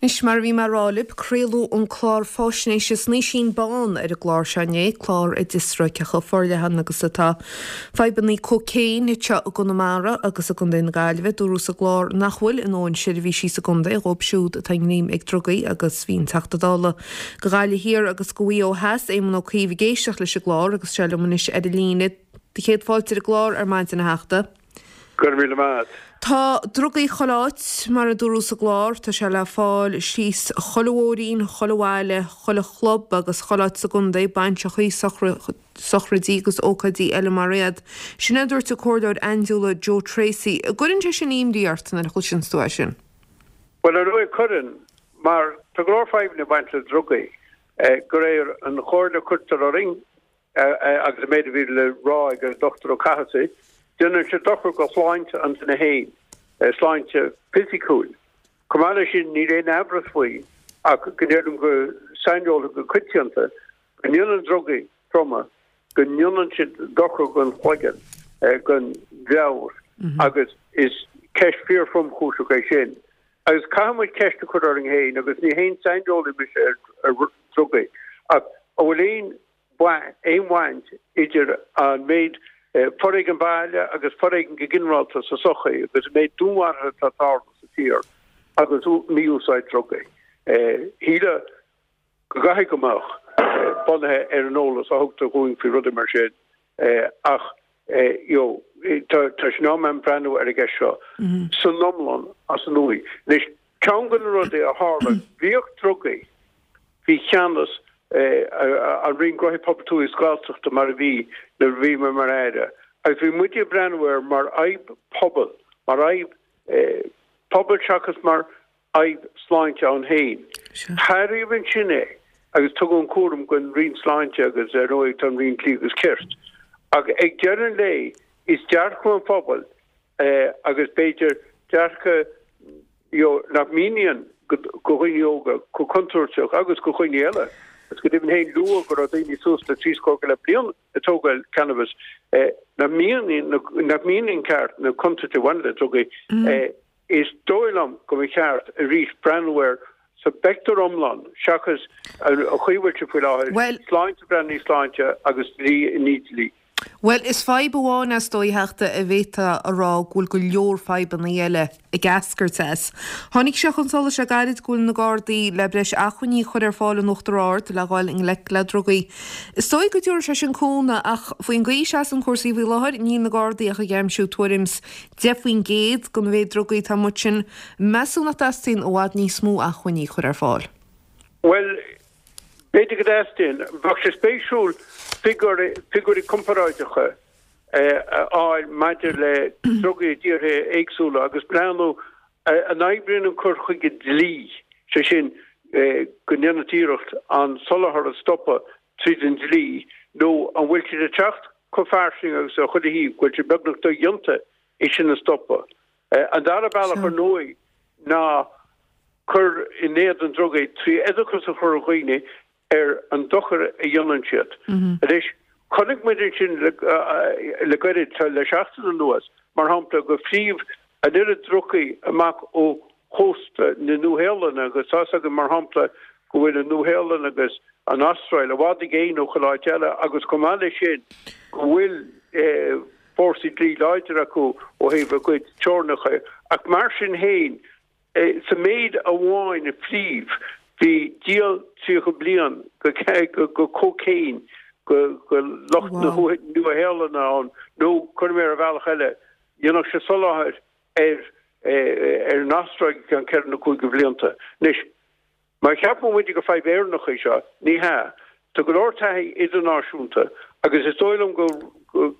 Anois, mar a bhí mé a rá libh, craoladh an clár fáisnéise Snaoisín Bán ar an gclár seo inné, clár a d'fhiosraigh cé chomh forleathan agus atá fadhbanna cócaon anseo i gConamara agus i gContae na Gaillimhe. Dúradh sa gclár nach bhfuil a ndóthain seirbhísí sa gcontae dhóibh siúd atá i ngreim ag drugaí agus bhí an Teachta Dála do Ghaillimh Thiar agus do Mhaigh Eo Theas, Éamon Ó Cuív ag éisteacht leis an gclár agus tá sé liom anois ar an líne. Céad fáilte ar an gclár ar maidin a Theachta. Go raibh míle maith a't. Tá drugaí chuile áit, mar a dúradh sa gclár. Tá sé le fáil síos chuile bhóithrín, chuile bhaile, chuile chlub agus chuile áit sa gcontae, bainseachaí, sochraidí agus ócáidí eile mar iad. Sin é a dúirt an Comhairleoir Aindiúla Joe Tracey. An gcuireann sé sin imní ort nuair a chloiseanns tú é sin? Bhuel, ar ndóigh cuireann, mar tá go leor fadhbanna ag baint le drugaí. De réir an chomhairle a cuirtear orainn, agus an méid a bhí le rá ag an Dr Ó Cathasaigh, déanann sé dochar go shláinte an duine féin, sláinte fisiciúil. Chomh maith leis sin, níl aon amhras faoi ach go ndeirim go saineolaithe go coitianta go ndéanann drugaí troma, go ndéanann siad dochar don chloigeann, don mheabhair agus is ceist fíor-thromchúiseach é sin. Agus caithfidh muid ceist a chur orainn féin, agus ní haon saineolaí mise ar dhrugaí, ach an bhfuil aon aon bhaint idir an méid foréigean baile agus foréigean go ginearálta sa tsochaí agus an méid dúnmharuithe atá ag tarlú sa tír agus mí-úsáid drugaí. Shílfeá go gcaithfidh go mbeadh, bunaithe ar an eolas a thugtar dhúinn faoi rudaí mar sin, ach you know tá sé in am breathnú ar an gceist seo san iomlán as an uaigh. Anois, ceann de na rudaí a tharla, bhíodh drugaí faoi cheannas an Roinn Gnóthaí Pobail Tuaithe agus Gaeltachta mar a bhí nuair a bhí mé mar Aire, agus bhí muid ag breathnú air mar fhadhb pobail, mar fhadhb pobail seachas mar fhadhb sláinte ann féin. Athraíodh ansin é agus tugadh an cúram don Roinn Sláinte agus ar ndóigh tá an Roinn Dlí agus Cirt. Ach ag deireadh an lae is dearcadh an phobail agus b'fhéidir dearcadh you know nach míníonn go dhaoine óga chomh contúirteach agus go dhaoine eile. Agus go deimhin féin luadh go raibh daoine suas le 70 bliain ag tógáil cannabis nach míníonn nach míníonn ceart na contúirtí a bhaineann le drugaí. Is dóigh liom go mba cheart arís breathnú air sa bpictiúr iomlán seachas an chaoi a bhfuil sé faoi láthair, sláinte breathnú i sláinte agus dlí i ndiaidh dlí. Bhuel, is fadhb amháin é is dóigh, a Theachta, a bhféadfá a rá go bhfuil go leor fadhbanna eile ag eascairt as. Tháinig sé chun solais le gairid go bhfuil na Gardaí le breis acmhainní a chur ar fáil in Uachtar Ard le dhul i ngleic le drugaí. Is dóigh go dtabharfaidh sé sin cúnamh ach faoin gcaoi a seasann cúrsaí faoi láthair níl na Gardaí ach ag aimsiú tuairim 's 10% den mhéid drugaí atá amuigh ansin, meas tú nach dteastaíonn i bhfad níos mó acmhainní a chur ar fáil? Bhuel, b'fhéidir go dteastaíonn. Bheadh sé spéisiúil figiúirí comparáideacha a fháil maidir le drugaí i dtíortha éagsúla agus breathnú an oibríonn an cur chuige dlí, sé sin, go ndéanann tú iarracht an soláthar a stopadh tríd an dlí, nó an bhfuil siad ag teacht chomh fairsing agus ar chuile thaobh go bhfuil sé beagnach dodhéanta é sin a stopadh. An dara bealach, ar ndóigh, ná cur in éadan drugaí trí oideachas a chur ar dhaoine ar an dochar a dhéanann siad. Anois, chonaic muid ansin le gairid, le seachtain anuas, mar shampla, gur phríomh an oiread drugaí amach ó chósta na Nua-Shéalainne agus tá's againn, mar shampla, go bhfuil an Nua-Shéalainn agus an Astráil i bhfad i gcéin ó chuile áit eile agus chomh maith leis sin go bhfuil fórsaí dlí láidir acu ó thaobh a gcuid teorainneacha. Ach mar sin féin, sa méid amháin a phríomh, bhí díol 30 bliain de cócaon go lucht na Nua-Shéalainne ann nó, cuirfidh mé ar bhealach eile, dhéanfadh sé soláthar ar ar an Astráil go ceann ceithre nó cúig de bhlianta. Anois, má cheapann muid gur fadhb Éireannach í seo, ní hea. Tá go leor taithí idirnáisiúnta agus is dóigh liom go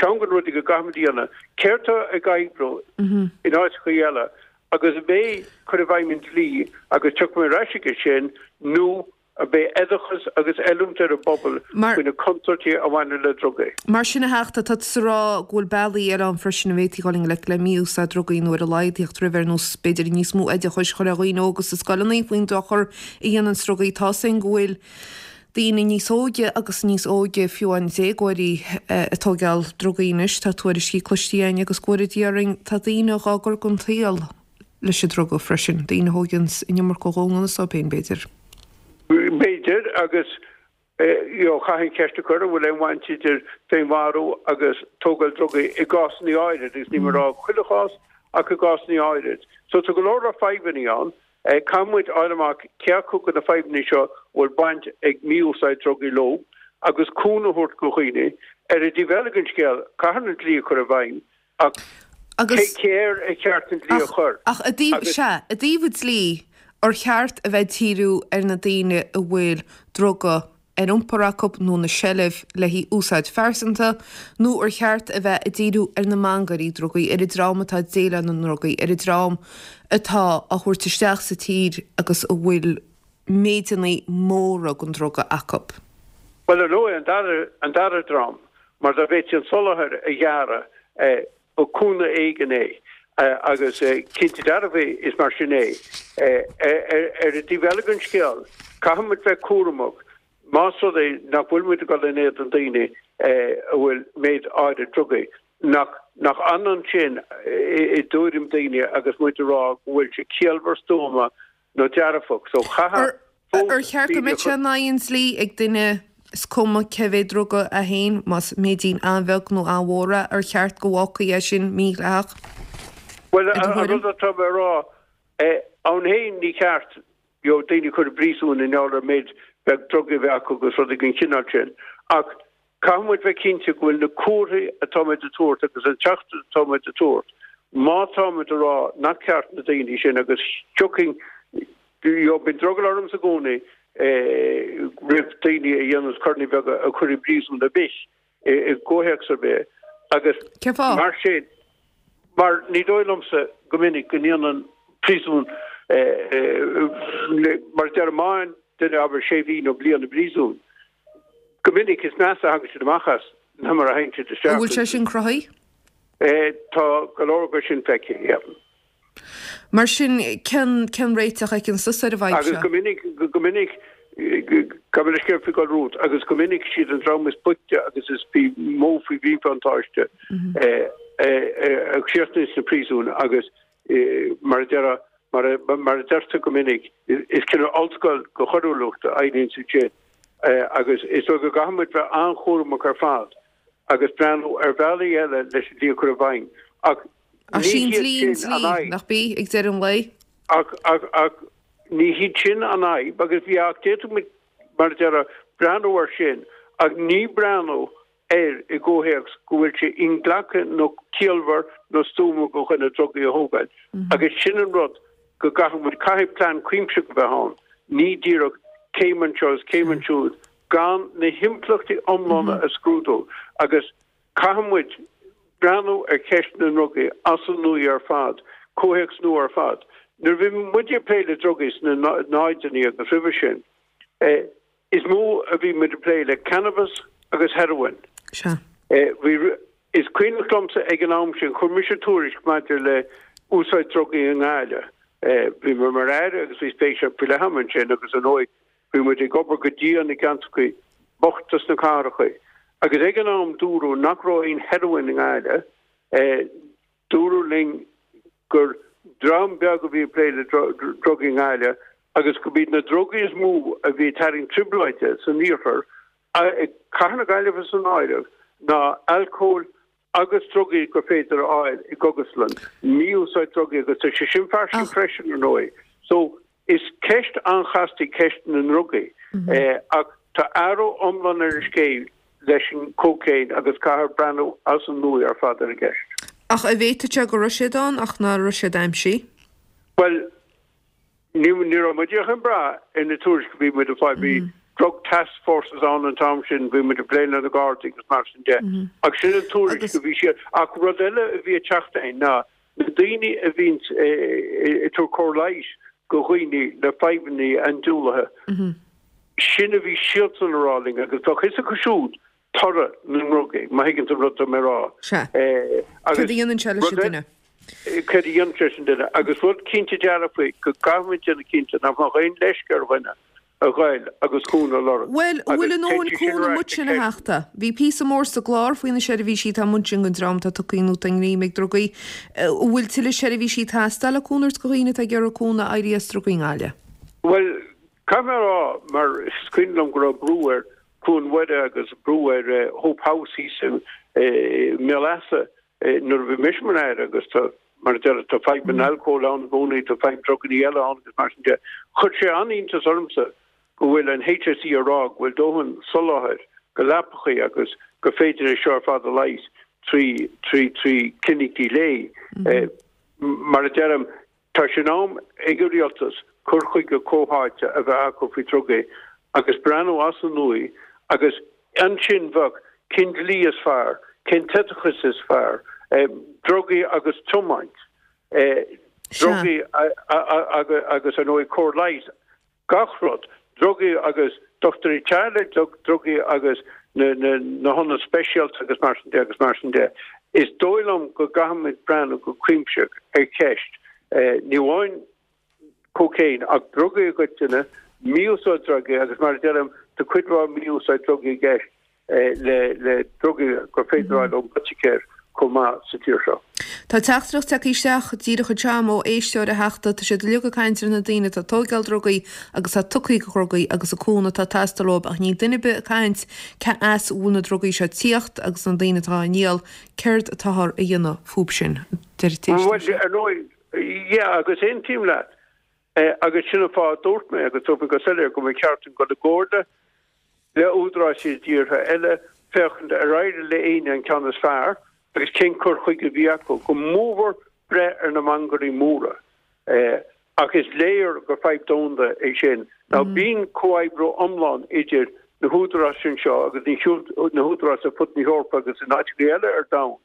ceann de na rudaí go gcaithfimid a dhéanamh, céard tá ag oibriú in áiteacha eile agus ab é cur i bhfeidhm an dlí agus tiocfaidh mé ar ais aige sin nó Ab é oideachas agus oiliúint ar an bpobal faoi na contúirtí a bhaineann le drugaí. Mar sin, a Theachta, tá tusa ag rá go bhfuil bealaí eile ann freisin a bhféadfaí dhul i ngleic le mí-úsáid drugaí nó ar a laghad theacht roimhe, ar nós, b'fhéidir, níos mó oideachais a chur ar dhaoine óga sna scoileanna faoin dochar a dhéanann drugaí. Tá's againn go bhfuil daoine níos óige agus níos óige, fiú amháin déagóirí, ag tóigeáil drugaí anois. Tá tuairiscí cloiste againn agus go bhfóire Dia orainn, tá daoine dhá gcur den tsaol. leis an druga freisin, daoine a thóigeanns an iomarca dhó i ngan fhios dóibh féin, b'fhéidir. B'fhéidir, agus you know chaithfinn ceist a chur, an bhfuil aon bhaint idir féinmharú agus tógáil drugaí i gcásanna áirid, agus níl mé ag rá chuile chás, ach i gcásanna áirid. So tá go leor leor fadhbanna ann. Caithfidh muid fháil amach cé acu de na fadhbanna seo a bhfuil baint ag mí-úsáid drugaí leo agus cúnamh a thabhairt do dhaoine. Ar an dtaobh eile den scéal, caithfear an dlí a chur i bhfeidhm ach cé air ar cheart an dlí a chur? Ach i dtaobh, sea, i dtaobh an dlí, ar cheart a bheith ag díriú ar na daoine a bhfuil druga ar iompar acu nó ina seilbh le haghaidh úsáid phearsanta, nó ar cheart a bheith ag díriú ar na mangairí drugaí, ar an dream atá ag déileáil na ndrugaí, ar an dream atá á thabhairt isteach sa tír agus a bhfuil méideanna móra den druga acu? Bhuel, ar ndóigh, an dara, an dara dream, mar dá bhféadfaí an soláthar a ghearradh, ba cúnamh éigin é agus cinnte dearfa is mar sin é. Ar an dtaobh eile den scéal, caithfidh muid bheith cúramach más rud é nach bhfuil muid ag dul in éadan daoine a bhfuil méid áirid drugaí, nach nach ionann sin i dtuairim daoine agus muid ag rá go bhfuil sé ciallmhar stuama nó dearfach. So chaithfeadh fós Ar cheart go mbeadh sé in aghaidh an dlí ag duine, is cuma cé mhéad druga é féin, más méidín an-bheag nó an-mhór é, ar cheart go bhfágfaí é sin mídhleathach? Bhuel, an rud atá mé a rá, ann féin ní ceart you know, daoine a chur i bpríosún i ngeall ar méid beag drugaí a bheith acu agus rudaí den chineál sin. Ach Caithfidh muid bheith cinnte go bhfuil na comharthaí atá muid a tabhairt agus an teachtaireacht atá muid a tabhairt, má tá muid a rá nach ceart na daoine sin agus thiocfainn, you know, bíonn drogall ormsa i gcónaí roimh daoine a dhéananns coireanna beaga a chur i bpríosún ar bith i gcomhthéacs ar bith agus Cén fáth? mar sin, mar ní dóigh liomsa go minic go ndéanann príosún mar a deir má fhaigheann duine abair sé mhí nó bliain i bpríosún, Go minic is measa a thagann siad amach as ná mar a thagann siad isteach. An bhfuil sé sin cruthaithe? Tá go leor de sin feicthe, yeah. Mar sin, cén, cén réiteach a fheiceann tusa ar an bhfadhb seo? Agus go minic, go minic, gabh mo leithscéal faoi dhul romhat, agus go minic siad an dream is boichte agus is mó faoi mhíbhuntáiste a chríochnaíonn sna príosúin agus Mar a deir, mar a deirtear go minic, is cineál ollscoil de choiriúlacht a éiríonn ansin agus is dóigh go gcaithfidh muid bheith an-chúramach ar fad agus breathnú ar bhealaí eile leis an dlí a chur i bhfeidhm. Ach ní hiad sin an fhadhb. Nach bí, ag deireadh an lae? Ach, ach, ach ní hiad sin an fhadhb agus bhí ach d'fhéadfadh muid, mar a deir, breathnú air sin ach ní breathnú air i gcomhthéacs go bhfuil sé inghlactha nó ciallmhar nó stuama do dhuine drugaí a thógáil. Agus sin an rud go gcaithfidh muid, caithfidh plean cuimsitheach a bheith ann, ní díreach céim anseo is céim ansiúd gan na himpleachtaí iomlána a scrúdú. Agus caithfidh muid breathnú ar cheist na ndrugaí as an nua ar fad, comhthéacs nua ar fad. Nuair a bhí muid ag plé le drugaí sna náideanna agus roimhe sin, Is mó a bhí muid ag plé le cannabas agus heroin. Sea. Bhí, is cuimhneach liomsa ag an am sin, chuir mise tuairisc maidir le úsáid drugaí i nGaillimh. Bhí mé mar Aire agus bhí spéis faoi leith agam ansin agus ar ndóigh bhí muid ag obair go dian i gceantracha bochta sna cathracha. Agus ag an am dúradh nach raibh aon heroin i nGaillimh. Dúradh linn gur dream beag a bhí ag plé le drugaí i nGaillimh agus go mb'iad na drugaí is mó a bhí ag tarraingt trioblóide san iarthar, Cathair na Gaillimhe san áireamh, ná alcól agus drugaí gur féidir a fháil i gcógaslann, mí-úsáid drugaí agus tá sé sin fairsing freisin, ar ndóigh. So, Is ceist an-chasta í ceist na ndrugaí ach tá athrú iomlán ar an scéal leis an cócaon agus caithfear breathnú as an nua ar fad ar an gceist. Ach an bhféadfadh sé go raibh siad ann ach ná raibh siad aimsithe? Bhuel, ní raibh muid ach ag brath ar na tuairiscí a bhí muid ag fáil. Bhí drug task forces ann an t-am sin, bhí muid ag plé le na Gardaí agus mar sin de. Ach sin an tuairisc a bhí siad. Ach rud eile a bhí ag teacht againn ná Na daoine a bhíonns ag tabhairt cóir leighis go dhaoine le fadhbanna andúilithe, sin a bhí siadsan a rá linn agus bheadh fhios acu siúd toradh na ndrugaí, má thuigeann tú an rud atá mé a rá. Sea. Céard a dhéanann sé leis an duine? Céard a dhéanann sé leis an duine. Agus rud cinnte dearfa go gcaithfimid déanamh cinnte nach mbeadh aon leisce ar dhuine. a ghoil agus cúnamh a lorg. Bhuel, an bhfuil a ndóthain cúnamh amuigh ansin, a Theachta? Bhí píosa mór sa gclár faoi na seirbhísí atá amuigh ansin don dream atá tugtha nó atá i ngreim ag drugaí. An bhfuil tuilleadh seirbhísí ag teastáil le cúnamh a thabhairt do dhaoine atá ag iarraidh cúnamh éirí as drugaí i nGaillimh? Bhuel, caithfidh mé a rá, mar is cuimhin liom go raibh brú ar Cluain Mhuire agus brú ar Hope House thíos i mBéal Easa nuair a bhí mise mar Aire agus tá, mar a deir, tá fadhb an alcóil ann i gcónaí, tá fadhb druganna eile ann agus mar sin de. Chuir sé an-iontas ormsa go bhfuil an HSE ag rá go bhfuil dóthain soláthair go leapachaí agus gur féidir é seo ar fad a leigheas trí, trí, trí clinicí lae. Mar a deirim, Tá sé in am ag an rialtas cur chuige comhtháite a bheith acu faoi drugaí agus breathnú as an nua agus ansin bheadh cén dlí is fearr, cén t-oideachas is fearr, drugaí agus tiomáint, drugaí agus ar ndóigh cóir leighis. gach rud, drugaí agus dochtúirí teaghlaigh, drugaí agus na hionaid speisialta agus mar sin de agus mar sin de. Is dóigh liom go gcaithfimid breathnú go cuimsitheach ar cheist ní amháin cócaon ach drugaí i gcoitinne, mí-úsáid drugaí agus mar a deirim, tá cuid mhaith mí-úsáid drugaí i gceist. le drugaí gur féidir a fháil ón bpoiticéir chomh maith sa tír seo. Tá teachtaireacht tagtha isteach díreach anseo agam ó éisteoir a Theachta. Tá siad uilig ag caint ar na daoine atá ag tóigeáil drugaí agus atá tugtha do dhrugaí agus an cúnamh atá ag teastáil uathu ach níl duine ar bith ag caint cé as a bhfuil na drugaí seo ag tíocht agus na daoine atá á ndíol, céard atáthar a dhéanamh fúb sin? Deir an t-éisteoir Bhuel, ar ndóigh, yeah, agus aontaím leat. Agus sin an fáth a dúirt mé, agus dúirt mé go soiléir, go mba cheart dúinn dul i gcomhairle le údaráis i dtíortha eile, féachaint ar éirigh le éinne an ceann is fearr agus cén cur chuige a bhí acu, go mórmhór breith ar na mangairí móra. Ach is léir gur fadhb domhanda é sin. Now bíonn comhoibriú iomlán idir na húdaráis anseo agus na húdaráis ar fud na hEorpa agus in áiteacha eile ar domhan.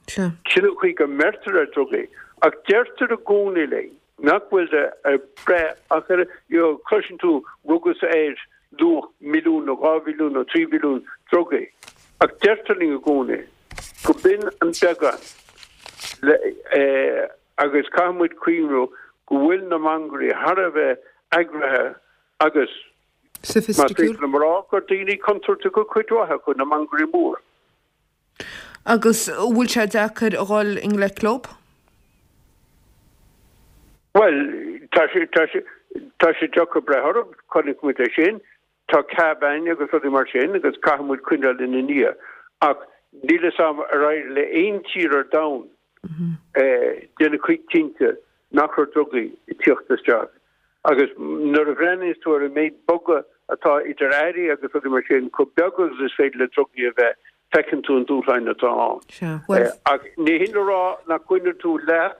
Sin an chaoi go mbeirtear ar drugaí. Ach deirtear i gcónaí linn nach bhfuil ag breith ach ar, you know, cloiseann tú rugadh ar luach milliún nó 2 mhilliún nó 3 mhilliún drugaí. Ach deirtear linn i gcónaí go b'in an beagán le, agus caithfidh muid cuimhniú go bhfuil na mangairí thar a bheith eagraithe agus más féidir liom a rá gur daoine contúirteacha cuid mhaith acu, na mangairí móra. Agus an bhfuil sé deacair a dhul i ngleic leo? Bhuel, tá sé, tá sé, tá sé deacair breith orthu, chonaic muid é sin. Tá CBAN agus rudaí mar sin agus caithfidh muid coinneáil ina ndiaidh. Ach níl fhios a'm ar éirigh le aon tír ar domhan déanamh cinnte nach raibh drugaí ag tíocht isteach. Agus nuair a bhreathnaíos tú ar an méid bogadh atá idir airí agus rudaí mar sin, chomh beag agus is féidir le drugaí a bheith, feiceann tú an dúshláin atá ann. Sea, bhuel. Ach ní hin le rá nach gcoinneoidh tú leat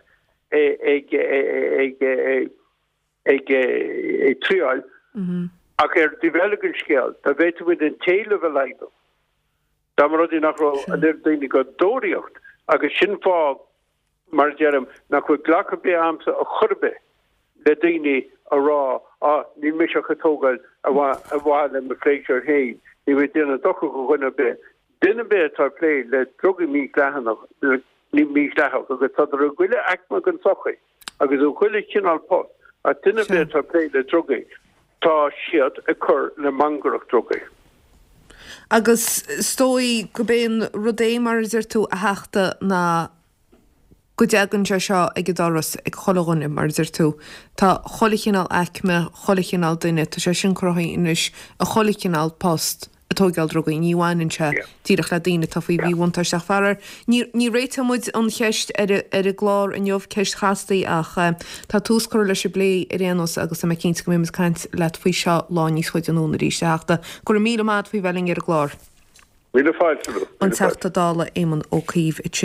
ag ag ag triáil, ach ar an dtaobh eile den scéal, dá bhféadfadh muid an t-éileamh a laghdú, dá mba rud é nach raibh an oiread daoine ag tóraíocht, agus sin fáth mar a deirim, nach bhfuil glacadh ar bith a'msa ar chor ar bith le daoine a rá, á, níl mise ach ag tógáil ar mhaithe le mo phléisiúr féin, níl mé ag déanamh dochar do dhuine ar bith. Duine ar bith atá ag plé le drugaí mídhleathanach, mídhleathach, agus tádar i gchuile aicme den tsochaí agus i gchuile chineál post, ach duine ar bith atá ag plé le drugaí, tá siad ag cur le mangaireacht drugaí. Agus is dóigh gurb é an rud é, mar a deir tú, a Theachta, ná go dtagann sé seo ag an doras ag chuile dhuine, mar a deir tú. Tá chuile chineál aicme, chuile chineál duine, tá sé sin cruthaithe anois i chuile chineál post ag tóigeáil drugaí, ní bhaineann sé díreach le daoine atá faoi mhíbhuntáiste ach faraor ní ní réiteoidh muid an cheist ar ar an gclár inniu, ceist chasta í ach tá tús curtha leis an bplé ar aon nós agus tá mé cinnte go mbeidh muid ag caint leat faoi seo lá níos faide anonn arís, a Theachta. Go raibh míle maith agat faoi bheith linn ar an gclár. Míle fáilte romhat. An Teachta Dála Éamon Ó Cuív ansin.